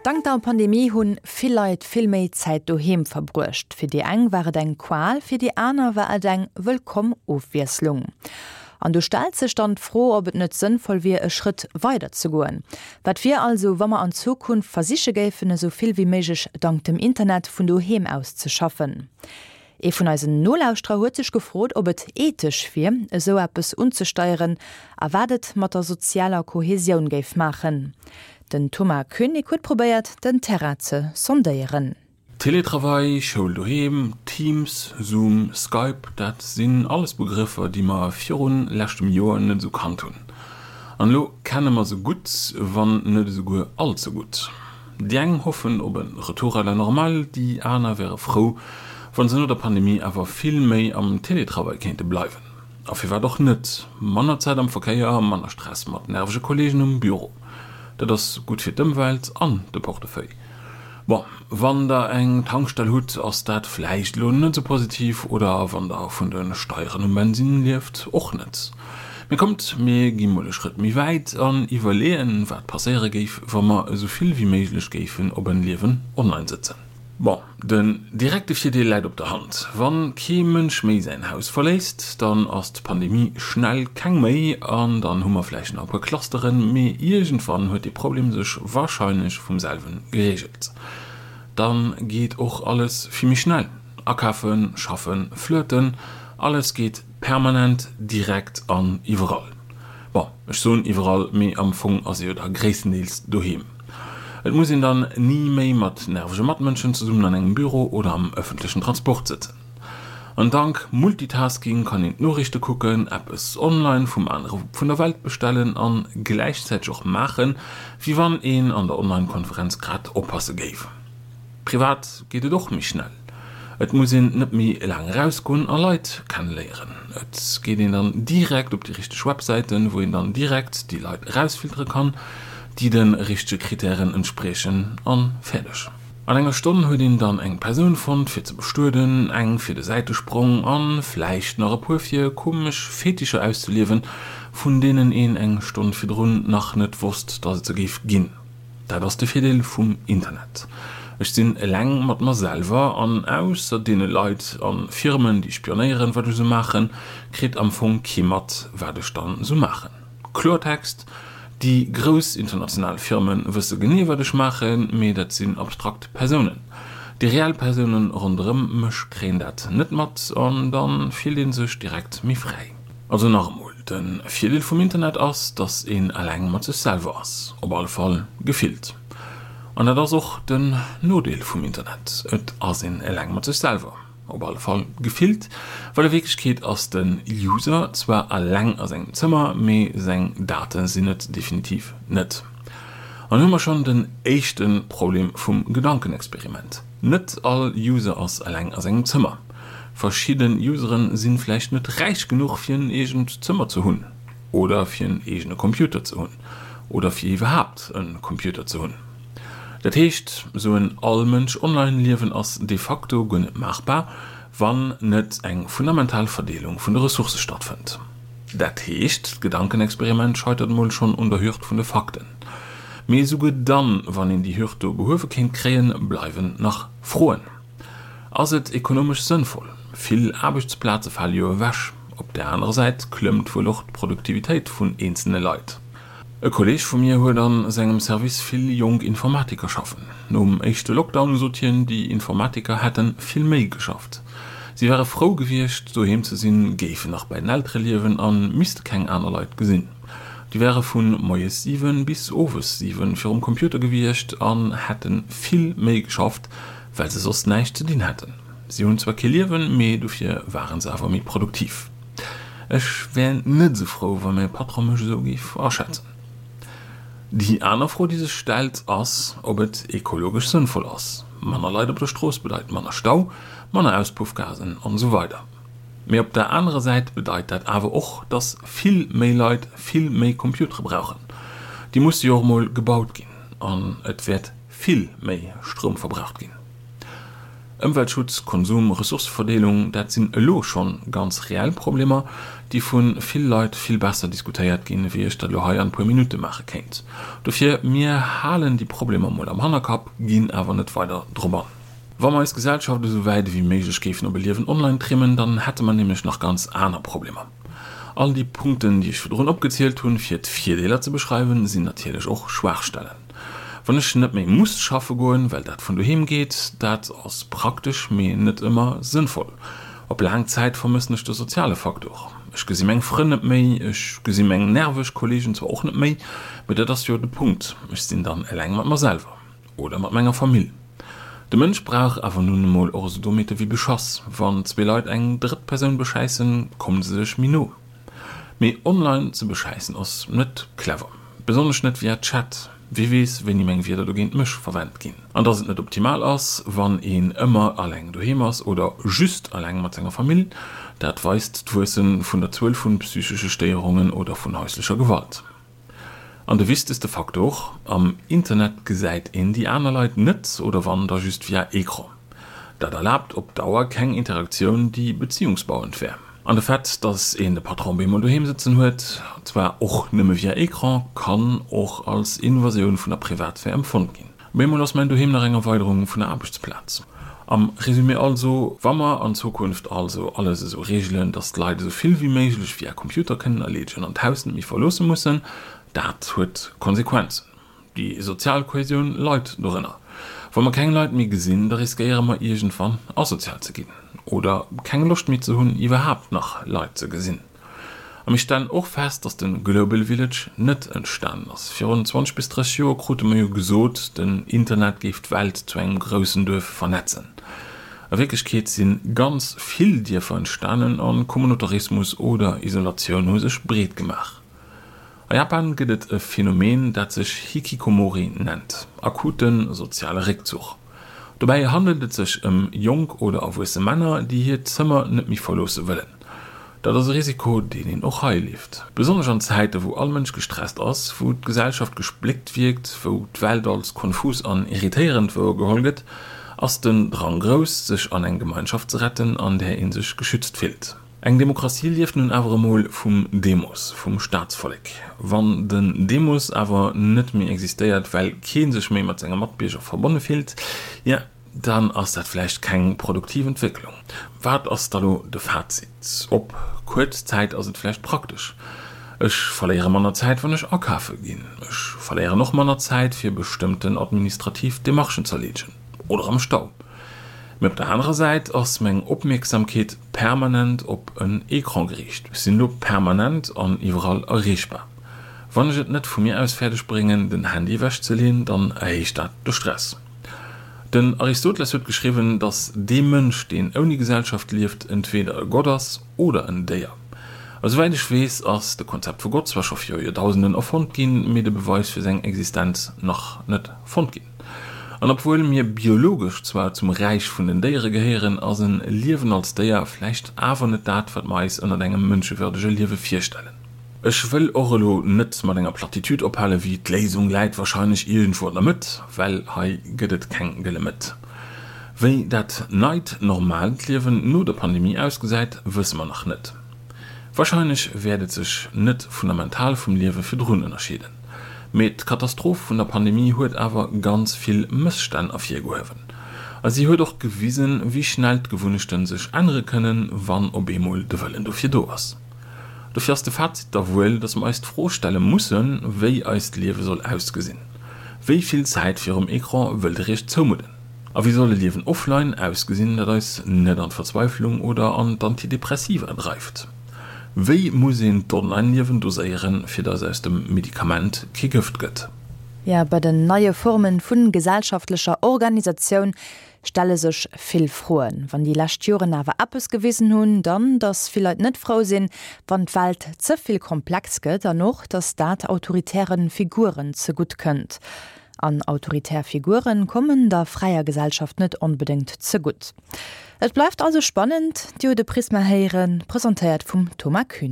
Dank der Pandemie hunn vill Leit vill méi Zäit doheem verbruecht. Fir déi eng war et eng Qual, fir déi aner war et eng wëllkomm Ofwiesslung. An do stellt sech dann d'Fro, ob et net sënnvoll wier, e Schrëtt weider ze goen. Wat wier also, wa mer an Zukunft versiche géifen, esou vill wéi méiglech dank dem Internet vun doheem aus ze schaffen? Ee vun eisen Nolauschterer huet sech gefrot, ob et ethesch wier, esou eppes unzesteieren a wat et mat der sozialer Kohesioun géif maachen. Den Thomas Koenig huet probéiert, den Terrain ze sondéieren. Teletravail, Schoul doheem, Teams, Zoom, Skype, dat sinn alles Begrëffer, déi mer virun leschtem Joer net esou kannt hunn. An elo kenne mer se gutt, wann net esouguer all ze gutt. Déi eng hoffen op e Retour à la normale, déi aner wäre frou, wa se no der Pandemie awer vill méi am Teletravail kéinte bleiwen. A firwat och net? Manner Zäit am Verkéier, manner Stress mat nervege Kolleegen um Büro. Dat ass gutt fir d'Ëmwelt an de Portefeuille. Bon, wann der eng Tankstell hutt, ass dat vläicht elo net esou positiv, oder wann der vun de Steieren um Bensinn lieft, och net. Mee kommt, mir gi mol e Schrëtt méi wäit an iwwerleeën, wat passéiere géif, wa mer esou vill wéi méiglech géifen op en Liewen online sëtzen. Bon, den direkte Virdeel läit op der Hand, Wann kee Mënsch méi säin Haus verléisst, dann ass d'Pandemie schnell keng méi an dann hu mer vläicht nach e puer Clusteren, mee iergendwann huet dee Problem sech warscheinlech vum selwen gereegelt. Dann geet och alles vill méi schnell, akafen, schaffen, flirten, alles geet Permanent, direkt an iwwerall. Bon, ech soen iwwerall, mee am Fong ass ee jo da gréisstendeels doheem. Et muss een dann ni méi mat nervege Matmënschen zesummen an engem Büro oder am ëffentlechen Transport sëtzen. An dank Multitasking kann een d'Noriichte kucken, eppes online vum anere Wupp vun der Welt bestellen an gläichzäiteg och maachen, wéi wann een an der Online-Konferenz grad oppasse géif. Privat geet et och méi schnell. Et muss een net méi laang erausgoen a Leit kenneléieren. Et geet een dann direkt op déi richteg Websäiten, wou een dann direkt déi Leit erausfiltere kann, déi de richtege Kritären entspriechen an fäerdeg. An enger Stonn huet een dann eng Persoun fonnt fir ze bestueden, eng fir de Säitesprong an vläicht nach e puer fir komesch Fetischer auszeliewen, vun deenen een eng Stonn virdrun nach net wosst, dass et se géif ginn. Dat ass de Virdeel vum Internet. Ech sinn eleng mat mer selwer an ausser deene Leit a Firmen déi spionéieren wat ech esou maachen, kritt am Fong kee mat wat ech dann esou maachen. Kloertext, déi grouss international Firmen wësse genee wat ech maachen, mee dat sinn abstrakt Persounen. Déi reell Persounen ronderëm mech kréien dat net mat an dann fillt een sech direkt méi fräi. Also nach emol, de Virdeel vum Internet ass, dass een eleng mat sech selwer ass, op alle Fall gefillt. An dat ass och den Nodeel vum Internet, et ass een eleng mat sech selwer, op alle Fall gefillt, well a Wierklechkeet ass de User zwar eleng a sengem Zëmmer, mee seng Date sinn et definitiv net. An hu mer schonn den éischte Problem vum Gedankenexperiment, Net all User ass eleng a sengem Zëmmer. Verschidden Useren sinn vläicht net räich genuch fir en eegent Zëmmer ze hunn oder fir en eegene Computer ze hunn oder fir iwwerhaapt en Computer ze hunn. Dat heescht, sou en All-Mënsch-Online-Liewen ass de facto guer net maachbar, wann net eng fundamental Verdeelung vun de Ressourcë stattfënnt. Dat heescht, d'Gedankenexperiment scheitert mol schonn un der Hürd vun de Fakten. Mee esouguer dann, wann een déi Hürd do behuewe kéint kréien, bleiwen nach Froen. Ass et ekonomesch sënnvoll? Vill Aarbechtsplaze fale jo ewech. Op där anerer Säit klëmmt wuel och d'Produktivitéit vun eenzelne Leit. E Kolleeg vu mir huet a sengem Service vill jonk Informatiker schaffen. Nom éischte Lockdown sot hien, déi Informatiker hätte vill méi geschafft. Si ware frou gewiescht, doheem ze sinn, géifen nach bei den Eltere liewen a misste keng aner Leit gesinn. Déi ware vu moies 7 bis owes 7 virum Computer gewiescht an hätte vill méi geschafft, well se soss näischt ze dinn hätten. Si hunn zwar kee Liewen, mee dofir ware se awer méi produktiv. Ech wär net esou frou, wa mäi Patron mech esou géif aschätzen. Déi aner Fro, déi sech stellt, ass, ob et ekologesch sënnvoll ass. Manner Leit op der Strooss bedeit manner Stau, manner Auspuffgasen an esou weider. Mee op der anerer Säit bedeit dat awer och, dass vill méi Leit vill méi Computere brauchen. Déi musse jo och emol gebaut ginn an et wäert vill méi Stroum verbraucht ginn. Ëmweltschutz, Konsum, Ressourceverdeelung, dat sinn elo schonn ganz reell Problemer, déi vu vill Leit vill besser diskutéiert ginn, wéi ech dat elo hei an puer Minutte maache kéint. Dofir, mir halen déi Problemer mol am Hannerkapp, ginn awer net weider drop an. Wa mer eis Gesellschaft esou wäit ewéi méiglech géifen op e Liewen online trimmen, dann hätte mer nämlech nach ganz aner Problemer. All déi Punkten, déi ech virdrun opgezielt hunn, fir d'Virdeeler ze beschreiwen, sinn natierlech och Schwaachstellen. Wann ech net méi muss schaffe goen, well dat vun doheem geet, dat ass praktesch, mee net ëmmer sënnvoll. Op laang Zäit vermëssen ech de soziale Faktor. Ech gesi meng Frënn net méi, ech gesi meng nerveg Kolleegen zwar och net méi, mee dat ass jo de Punkt, ech sinn dann eleng mat mer selwer. Oder mat menger Famill. De Mënsch brauch awer nun emol och esou Dommheete wéi Beschass. Wann zwee Leit eng drëtt Persoun beschäissen, kommen se sech méi no. Mee online ze beschäissen ass net clever. Besonnesch net via Chat. Wie weess, wéini meng Wierder dogéint mech verwent ginn. An dass et net optimal ass, wann een ëmmer alleng doheem ass oder just alleng mat senger Famill, dat weist d'Wuesse vun der Zuel vu psychesche Stéierungen oder vun häuslecher Gewalt. An de wichtegste Faktor, Am Internet gesäit een déi aner Leit net, oder wann, da just via Ecran. Dat erlaabt op Dauer keng Interaktioun, déi beziehungsbauend wär. An de Fait, dass een de Patron bemol doheem sëtzen huet, zwar och nëmme via Ecran, kann och als Invasioun vun der Privatsphär empfonnt ginn. Bemol ass mäin Doheem nach eng Erweiderung vun der Aarbechtsplaz. Am Résumé also, Wa mer an Zukunft also alles esou reegelen, dass d'Leit esou vill wéi méiglech via Computer kënnen erleedegen an d'Haus net méi verloosse mussen, dat huet Konsequenzen. Déi sozial Kohäsioun leit dorënner. Wa mer keng Leit méi gesinn, da riskéiere mer iergendwann asozial ze ginn oder keng Loscht méi ze hunn iwwerhaapt nach Leit ze gesinn. A mir stellen och fest, dass de Global Village net entstanen ass. Virun 20 bis 30 Joer krute mer jo gesot, den Internet géif d'Welt zu engem groussen Duerf vernetzen. A Wierklechkeet si ganz vill Dierfer entstanen a Communautarismus oder Isolatioun hu sech breet gemaach. A Japan gëtt et e Phänomen, dat sech Hikikomori nennt, akute soziale Réckzuch. Dobäi handelt et sech ëm jonk oder erwuesse Männer, déi hiert Zëmmer net méi verloosse wëllen. Dat ass e Risiko, deen een och hei leeft. Besonnesch an Zäite wou all Mënsch gestresst ass, wou d'Gesellschaft gespléckt wierkt, wou d'Welt als konfus an irritéierend wouergeholl gëtt, ass den Drang grouss, sech an eng Gemeinschaft ze retten, an där ee sech geschützt fillt. Eng Demokratie lieft nun awer emol vum Demos, vum Staatsvollek. Wann den Demos awer net méi existéiert, well kee sech méi mat senge Matbierger verbonne fillt, jo, dann ass dat vläicht keng produktiv Entwécklung. Wat ass da lo de Fazit? Op kuerz Zäit ass et vläicht praktesch. Ech verléiere manner Zäit, wann ech akafe ginn. Ech verléieren och manner Zäit, fir bestëmmten administrativ Demarchen z'erleedegen oder am Stau. Mee op der anerer Säit ass meng Opmierksamkeet permanent op en Ecran geriicht. Ech sinn elo permanent an iwwerall erreechbar. Wann ech et net vu mir aus fäerdeg bréngen, den Handy ewech ze leen, dann erhéicht dat de Stress. Den Aristoteles huet geschriwwen, datt dee Mënsch, deen ouni Gesellschaft lieft, entweeder e Gott ass oder en Déier. A souwäit ech weess, ass de Konzept vu Gott zwar scho viru Joerdausenden erfonnt ginn, mee de Beweis fir seng Existenz nach net fonnt ginn. An obwuel mir biologesch zwar zum Räich vun den Déiere gehéieren, ass en Liewen als Déier vläicht awer net dat, wat mer eis ënnert engem mënschewürdege Liewe virstellen. Ech wëll och elo net mat enger Plattitüd ophale wéi d'Léisung läit wahrscheinlech iergendwou an der Mëtt, well hei gëtt et keng gëlle Mëtt. Wéi dat neit normaalt Liewen no der Pandemie ausgesäit, wësse mer nach net. Wahrscheinlech wäert et sech net fundamental vum Liewe virdrun ënnerscheeden. Mee d'Katastroph vun der Pandemie huet awer ganz vill Mësstänn ervirgehuewen. A si huet och gewisen, wéi schnell d'Gewunnechte sech ännere kënnen, wann op eemol de Wëllen dofir do ass. Dofir ass de Fazit da wuel, datt mer eis d'Fro stelle mussen, wéi eist Liewe soll ausgesinn. Wéi vill Zäit virum Ecran wëllt Der Iech zoumudden? A wéi soll e Liewen offline ausgesinn, dat eis net an d'Verzweiflung oder an d'Antidepressiva dreift? Wéi muss een d'Online-Liewen doséieren, fir datt aus dem Medikament kee Gëft gëtt? Jo, bei den neie Formen vu gesellschaftlecher Organisatioun stelle sech vill Froen. Wann déi lescht Joren awer eppes gewisen hunn, dann, datt vill Leit net frou sinn, wann d'Welt ze vill komplex gëtt an och, datt dat autoritäre Figuren zegutt kënnt. An autoritär Figuren kommen der fräier Gesellschaft net onbedéngt zegutt. Et bleift also spannend, Dir hutt e Prisma héieren, presentéiert vum Thomas Kühn.